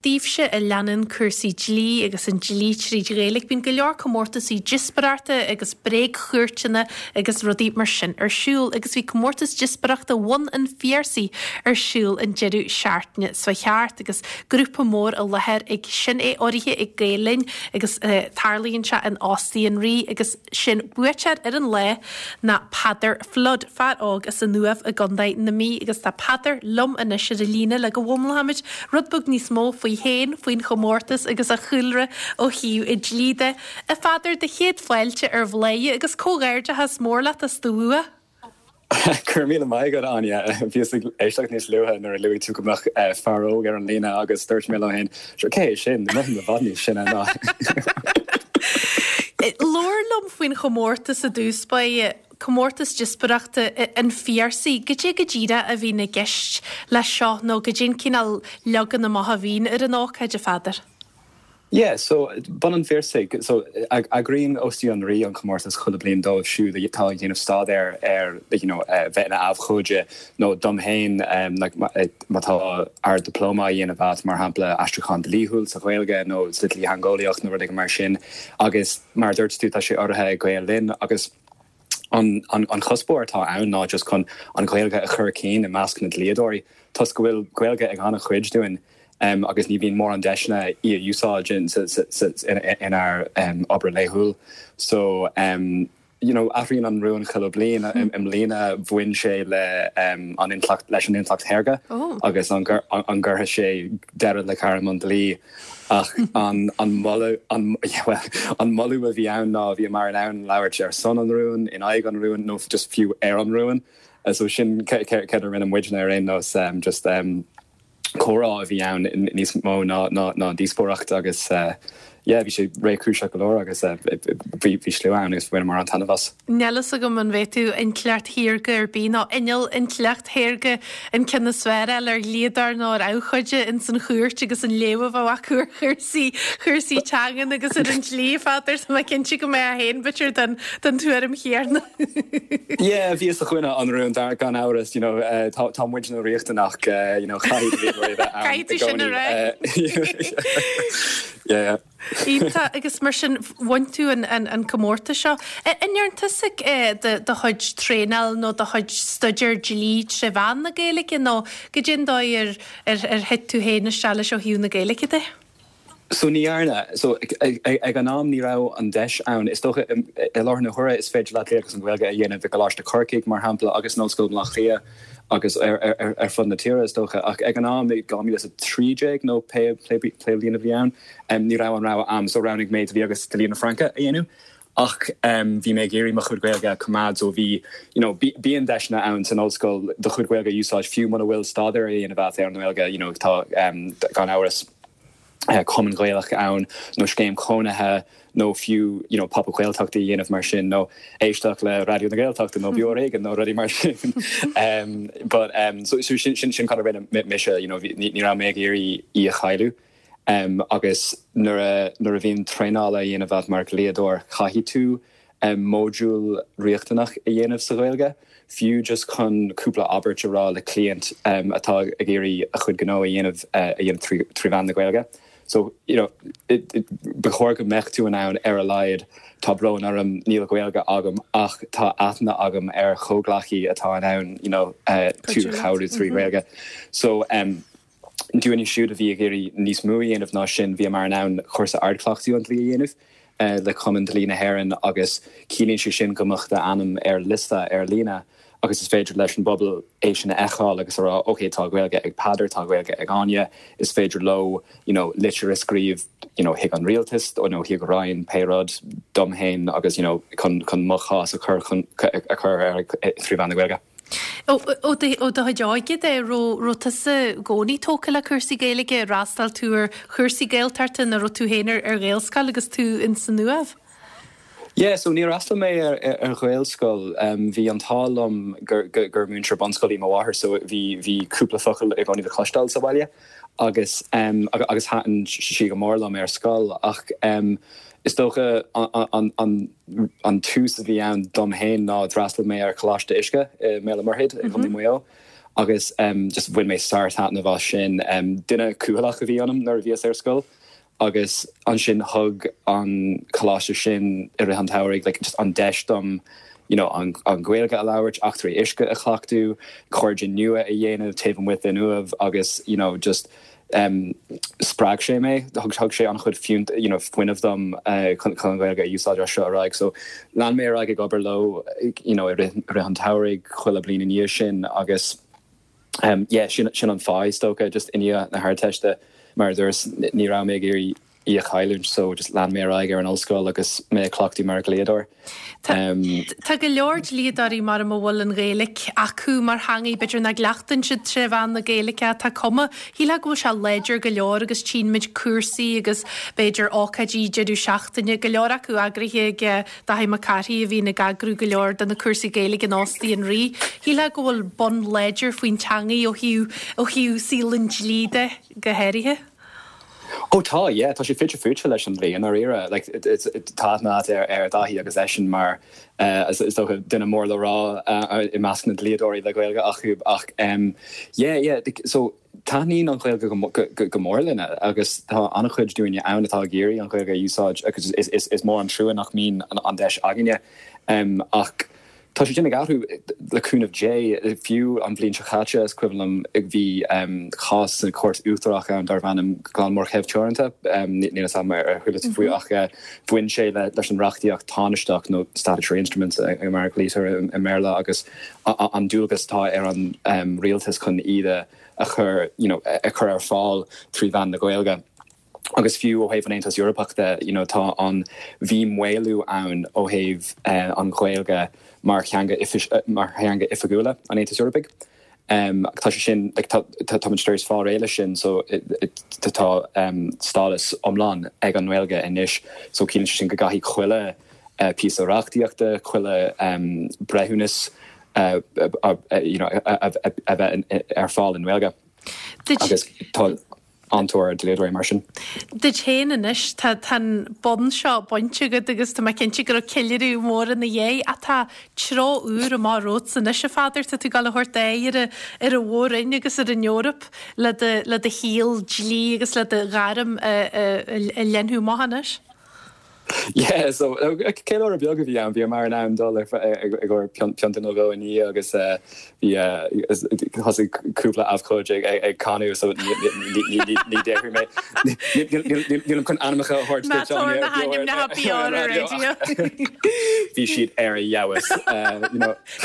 Daoibhse a leanann cúrsaí dlí agus an dlí tríd Ghaeilge, bíonn go leor comórtasaí díospóireachta agus bréagchúirteanna agus rudaí mar sin ar siúl agus bhí comórtas díospóireachta Bhun an Phiarsaigh ar siúl an deireadh seachtaine seo thart agus grúpa mór i láthair ag sin é urraithe ag Gael Linn agus tarlaíonn sé in Óstaí an Rí agus Sé'n buaiteoir ar an lá ná Peadar Flood, fear óg as an Uaimh i gContae na Mí agus tá Peadar liom anois ar an líne le go bhfoghlaimeoimid rud beag níos mó faoi fhéin, faoin chomórtas agus a chúlra ó thaobh an dlí de. A Pheadair, do chéad fáilte ar Bhladhaire agus comhghairdeachas mór leat as do bhua! Go raibh míle maith agat, Áine. Bhíos ag éisteacht níos luaithe nuair a luaigh tú go mbeadh fear óg ar an líne agus dúirt mé liom féin, sure, cé hé sin? Mothaím i bhfad níos sine ná. Labhair liom faoin chomórtas i dtús báire, comórtas díospóireachta an Phiarsaigh. Goidé go díreach a bhíonn i gceist leis seo nó goidé an cineál leagan amach a bhíonn ar an ócáid, a Pheadair? Yeah, so, Bun an Phiarsaigh, so, eagraíonn Óstaí an Rí an comórtas chuile bliain dóibh siúd atá ag déanamh staidéar ar, you know, bheith ina abhcóide nó dom féin, like, má tá Ard-Dioplóma á dhéanamh agat, mar shampla, aistriúchán dlíthiúil sa Ghaeilge nó sa dlítheangeolaíocht nó rud éigin mar sin. Agus mar a dúirt tú, tá sé urraithe ag Gael Linn agus an, an, an chuspóir atá ann ná just chun an Ghaeilge a chur cinn i measc na dlíodóirí toisc go bhfuil Gaeilge ag an-chuid dúinn. agus ní bhíonn mórán deiseanna í a úsáid inár obair laethúil. So, you know, athraíonn an rún chuile bliain. I mbliana bhain sé le an intleacht, leis an intleacht shaorga agus an gcuirfidh sé deireadh le gairm an dlí. Ach an moladh, an, well, an moladh a bhí ann ná bhíomar in ann labhairt ar son an rúin, in aghaidh an rúin nó just fiú ar an rún. So sin céard a rinne muidne ar aon nós, just. comhrá a bhí ann níos mó ná díospóireacht agus yeah bhí sé réchúiseach go leor agus bhí slua ann agus bhaineamar an-taitneamh as. Níl fhios agam an bhféadfadh intleacht shaorga ar bith nó inneall intleacht shaorga an ceann is fearr a fháil ar dhlíodóir nó ar abhcóide ins an chúirt agus an léamh a bheadh acu ar chúrsaí, chúrsaí teangan agus ar an dlí, a Pheadair, tá mé cinnte go mbeifeá féin b'fhéidir den, den tuairim chéanna. Yeah, bhíos i gcoinne an rúin gan amhras, you know, tá, tá muidne riachtanach, you know, caithfidh dlíodóirí a bheith ann i Caithfidh tú sin a gcónaí. rá. Yeah. Iontach, agus mar sin bhain tú an, an, an comórtas seo. An ndearn tusa do, do chuid traenáil nó do chuid staidéar dlí tré mheán na Gaeilge nó goidé an dóigh ar, ar, ar thit tú féin isteach leis ó thaobh na Gaeilge de? So ní dhearna. So ag an am ní raibh an deis ann. Is dócha i láthair na huaire is féidir leat Dlí agus an Ghaeilge a dhéanamh i gColáiste Chorcaigh mar shampla agus in Ollscoil Bhaile Átha Cliath agus ar fud na tíre is dócha. Ach ag an am i 2013 nó pé bliain a bhí ann ní raibh an rogha a'm so roghnaigh mé Dlí agus Dlí na Fraince a dhéanamh. Ach bhí mé ag iarraidh mo chuid Gaeilge a choimeád so bhí you know bíonn deiseanna ann san ollscoil do chuid Gaeilge a úsáid fiú muna bhfuil staidéar á dhéanamh agat ar an nGaeilge you know tá gan amhras cumann Gaelach ann nó scéim chónaithe nó fiú you know pop-up Gaeltachta a dhéanamh mar sin nó éisteacht le Raidió na Gaeltachta nó Beo Ar Éigean nó rudaí mar sin but so sin sin sin cad a rinne mise you know ní raibh mé ag iarraidh í a chailleadh. Agus nuair a nuair a bhíonn traenáil á dhéanamh agat mar dhlíodóir, caithfidh tú módúl riachtanach a dhéanamh sa Ghaeilge, fiú just chun cúpla abairt a rá le cliant atá ag iarraidh a chuid gnó a dhéanamh a dhéanamh trí mheán na Gaeilge. So, you know, ba chóir go mbeadh tú in ann ar a laghad, tá brón orm, níl Gaeilge agam ach tá aithne agam ar chomhghleacaí atá in ann, you know, tú a chabhrú trí Ghaeilge. So, Dúinne siúd a bhí ag iarraidh níos mó a dhéanamh ná sin, bhíomar in ann cúrsa ardchleachtaidh an dlí a dhéanamh le Cumann Dlí na hÉireann agus ciallaíonn sé sin go mbeadh d'ainm ar liosta ar líne agus is féidir leis an bpobal é sin a fheiceáil agus a rá ok tá Gaeilge ag Peadar, tá Gaeilge ag Áine, is féidir leo you know litir a scríobh you know chuig an rialtas nó chuig Roinn pé rud dom féin agus you know chun chun mo chás a chur chun a chur ar trí mheán na Gaeilge. Ó do chuid óige de, raibh tusa i gcónaí tógtha le cúrsaí Gaeilge, ar fhreastail tú ar chúrsaí Gaeltachta nó raibh tú féin ar Ghaelscoil agus tú ins an Uaimh? Yeah, so níor fhreastail mé ar Ghaelscoil. Bhí an t-ádh liom gur múinteoir bunscoile í mo mháthair so bhí cúpla focal i gcónaí le cloisteáil sa bhaile agus agus thaitin sí go mór liom ar scoil ach is dócha an an tús a bhí ann dom féin ná d'fhreastail mé ar Choláiste Uisce i mBéal an Mhuirthead i gContae Mhaigh Eo. Agus just bhain mé sár-taitneamh as sin. Duine cúthaileach a bhí ionam nuair a bhíos ar scoil agus ansin thug an coláiste sin i rith an tsamhraidh like just an deis dom you know an Ghaeilge a labhairt, eachtraí uisce a chleachtadh, cairde nua a dhéanamh taobh amuigh den Uaimh agus you know just spreag sé mé, thug sé an-chuid fiúnt you know fuinnimh dom chun an Ghaeilge a úsáid as seo ar aghaidh. So lean mé ar aghaidh ag obair leo you know i rith an tsamhraidh chuile bliain i ndiaidh sin agus yeah sin sin an fáth is dócha just i ndiaidh na hArdteiste mar a dúras ní raibh mé ag iarraidh í a chailliúint so just lean mé ar aghaidh ar an ollscoil agus mé ag cleachtadh mar dhlíodóir. Tá go leor dlíodóirí mar a bhfuil an Ghaeilge acu mar theangaidh, b'fhéidir nach gcleachtann siad tré mheán na Gaeilge ach tá cuma, shílfeá go bhfuil sé láidir go leor agus tchíonn muid cúrsaí agus b'fhéidir ócáidí deireadh seachtaine, go leor acu eagraithe ag Dáithí Mac Cárthaigh a bhíonn ag eagrú go leor de na cúrsaí Gaeilge in Óstaí an Rí. Shílfeá go bhfuil bun láidir faoin teangaidh ó thaobh ó thaobh saol an dlí de go háirithe. Ó tá, yeah, tá sé fite fuaite leis an dlí i ndáiríre. Like, tá aithne agat ar ar Dáithí agus eisean mar is dócha duine mór le rá i measc na ndlíodóirí le Gaeilge acu ach yeah, yeah, so taitníonn an Ghaeilge go mór linne agus tá an-chuid dúinne ann atá ag iarraidh an Ghaeilge a úsáid agus is mór an trua nach mbíonn an deis againne ach Tá sé sin ag athrú, le cúnamh Dé. Fiú an bhliain seo chaite, is cuimhin liom, bhí cás sa Chúirt Uachtarach ann darbh ainm Glanmór Chev Teoranta, níl a fhios agam ar chuala tú faoi, ach bhain sé leis an reachtaíocht tánaisteach nó statutory instruments mar a ghlaoitear i mBéarla agus an dualgas atá ar an rialtas chun iad a chur, you know, a chur ar fáil trí mheán na Gaeilge. Agus fiú ó thaobh an Aontas Eorpach de, you know, tá an, bhí maolú ann ó thaobh an Ghaeilge mar theanga, mar theanga oifigiúla an Aontais Eorpaigh. Tá sé sin, like, tá, táimid tar éis fáil réidh leis sin, so tá stádas iomlán ag an nGaeilge anois, so ciallaíonn sé sin go gcaithfidh chuile píosa reachtaíochta, chuile breithiúnas, you know, a bheith ar fáil i nGaeilge. Agus tá. an-tóir ar dhlíodóirí mar sin. Duit féin anois, tá an bonn seo bainte agat agus tá mé cinnte go raibh ceiliúradh mór ina dhiaidh ach tá treo úr amach romhatsa anois, a Pheadair, tá tú ag dul a thabhairt aghaidh ar ar an mhór-roinn agus ar an Eoraip le do le do shaol dlí agus le do ghairm a a leathnú amach anois. Yeah, so ceiliúradh beag a bhí ann, bhíomar in ann dul i gcomhair pionta nó dhó i ndiaidh agus bhí thosaigh cúpla abhcóide ag canadh so ní déarfaidh mé nílim chun ainmneacha a thabhairt duit Áine na hainmneacha beo ar an raidió. Bhí siad ar a fheabhas.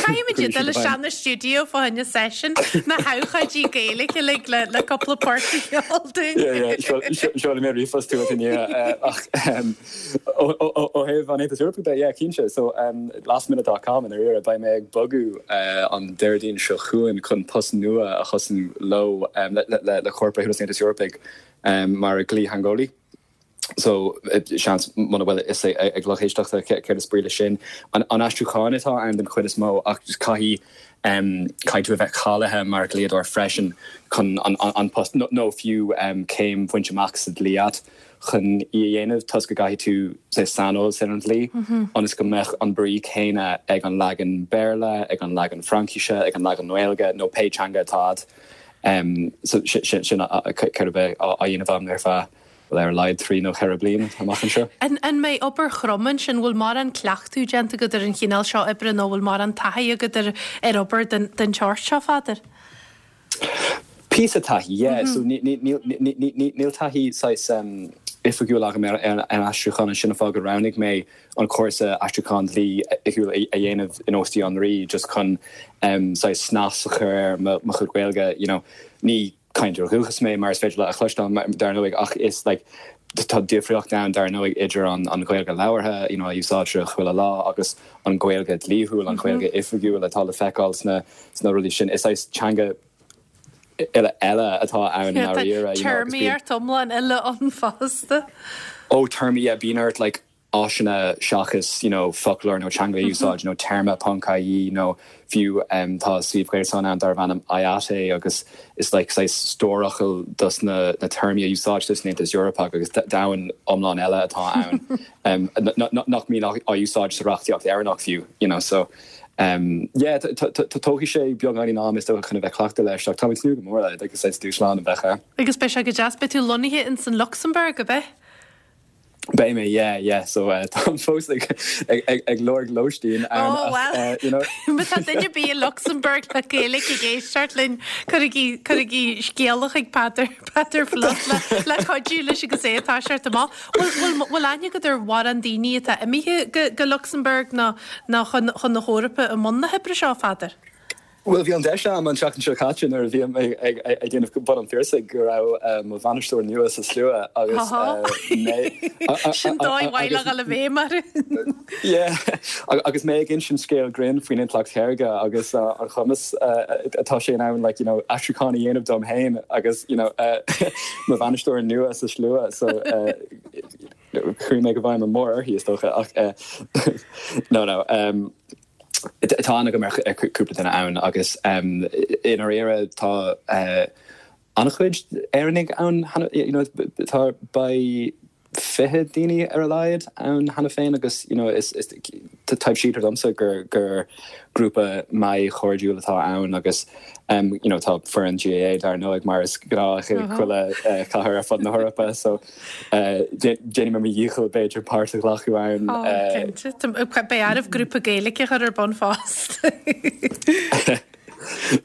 Caithfimid iad dul isteach na stiúideo fá choinne session na habhcóidí Gaeilge uilig le le cúpla port a cheol dúinn. Seolfaidh mé ríomhphost chugat i ndiaidh ach ó thaobh an Aontais Eorpaigh de, yeah, cinnte. So lastminute dot com i ndáiríre, beidh mé ag bogadh an Déardaoin seo chugainn chun post nua a thosú leo le Comhar Breithiúnas an Aontais Eorpaigh mar dhlítheangeolaí. So, seans, muna bhfuil a fhios ag lucht éisteachta céard is brí leis sin. An aistriúchán atá ann den chuid is mó ach caithfidh, caithfidh tú a bheith cáilithe mar dhlíodóir freisin chun an post, nó fiú céim bhaint amach sa dlí a't chun í a dhéanamh toisc go gcaithfidh tú saghas saineolas ar an dlí ionas go mbeadh an brí céanna ag an leagan Béarla, ag an leagan Fraincise, ag an leagan Gaeilge nó pé teanga atá a't. So sin céard a bheidh á dhéanamh agam ar feadh bhuel, ar a laghad 3 nó 4 bliain amach anseo. An mbeidh obair throm ansin? Bhfuil mórán cleachtadh déanta agat ar an chineál seo oibre nó bhfuil mórán taithí agat ar ar obair den den tseort seo, Pheadair? Píosa taithí, yeah. So níl taithí saghas oifigiúil agam ar an aistriúchán, sin an fáth gur roghnaigh mé an cúrsa aistriúchán dlí oifigiúil a dhéanamh in Óstaí an Rí just chun saghas snas a chur ar mo chuid Gaeilge, you know. Ní cainteoir dúchais mé, mar is féidir leat a chloisteáil, dar ndóigh, ach is like tá difríocht ann, dar ndóigh, idir an an Ghaeilge labhartha, you know, a úsáidtear chuile lá, agus an Ghaeilge dlíthiúil, an Ghaeilge oifigiúil atá le feiceáil sna sna rudaí sin. Is saghas teanga uile eile atá ann i ndáiríre, you know, agus bíonn. Téarmaíocht iomlán eile ann fosta. Ó, téarmaí, yeah, bíonn ort like áiseanna seachas you know foclóir nó teanga a úsáid, you know téarma ponc ie nó fiú tá suíomh gréasáin ann darbh ainm IATE agus is like saghas stór focal dos na na téarmaí a úsáidtear san Aontas Eorpach agus domhan iomlán eile atá ann nach mbíonn á úsáid sa reachtaíocht Éireannach fiú you know so. Yeah, tógfaidh sé beagáinín am is dócha chun a bheith cleachta leis ach táim ag tnúth go mór le agus saghas dúshlán a bheadh ann. Agus beidh sé go deas. Beidh tú lonnaithe ins an Lucsamburg, ab ea? Beidh mé, yeah, yeah. So táim fós ag ag lorg lóistín ann Oh well, you know. Má tá duine ar bith i Lucsamburg le Gaeilge ag éisteacht linn, cuirigí cuirigí scéala chuig Peadar Peadar Flood le le cuidiú leis agus é ag toiseacht amach. Bhfuil bhfuil aithne agat ar mhórán daoine atá imithe go go Lucsamburg nó nó chun chun na hEorpa i mbun na hoibre seo, a Pheadair? Bhuel, bhí an deis agam an tseachtain seo caite nuair a bhí mé ag déanamh Bun an Phiarsaigh go raibh mo bhainisteoir nua sa slua agus mé Sin dóigh mhaith le dhul i bhfeidhm orthu. Yeah, agus mé ag insint scéal grinn faoin intleacht shaorga agus an chumas atá sé in ann like, you know, aistriúchán a dhéanamh dom féin agus you know, mo bhainisteoir nua sa slua so chuaigh mé go bhfeidhm mór uirthi is dócha ach no no. Um, Tá aithne agam ar chúpla duine ann agus i ndáiríre tá an-chuid Éireannaigh ann cheana, you know, tá beidh 20 daoine ar a laghad ann cheana féin agus you know is is taibhsítear domsa gur gur grúpa maith chairdiúil atá ann agus you know tá foireann GAA dar ndóigh mar is gnách i chuile chathair ar fud na hEorpa so Déanfaidh mé mo dhícheall, b'fhéidir, páirt a ghlacadh ann. Ó, cinnte. Beidh oraibh grúpa Gaeilge a chur ar bun fosta.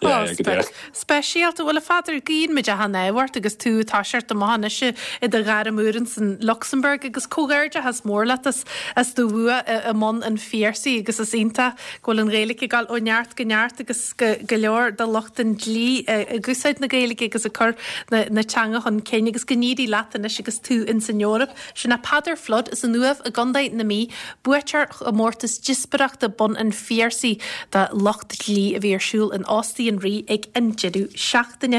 Yeah, yeah, go díreach. Speisialta. Bhuel, a Pheadair, guíonn muid achan ádh ort agus tú ag toiseacht amach anois i do ghairm úr insan Lucsamburg agus comhghairdeachas mór leat as as do bhua i mBun an Phiarsaigh agus is iontach go bhfuil an Ghaeilge ag dul ó neart go neart agus go go leor de lucht an dlí ag úsáid na Gaeilge agus ag cur na teanga chun cinn agus go n-éirí leat anois agus tú ins an Eoraip. Sin é Peadar Flood as an Uaimh i gContae na Mí, buaiteoir chomórtas díospóireachta Bun an Phiarsaigh do lucht dlí a bhí ar siúl in Óstaí an Rí ag an deireadh seachtaine.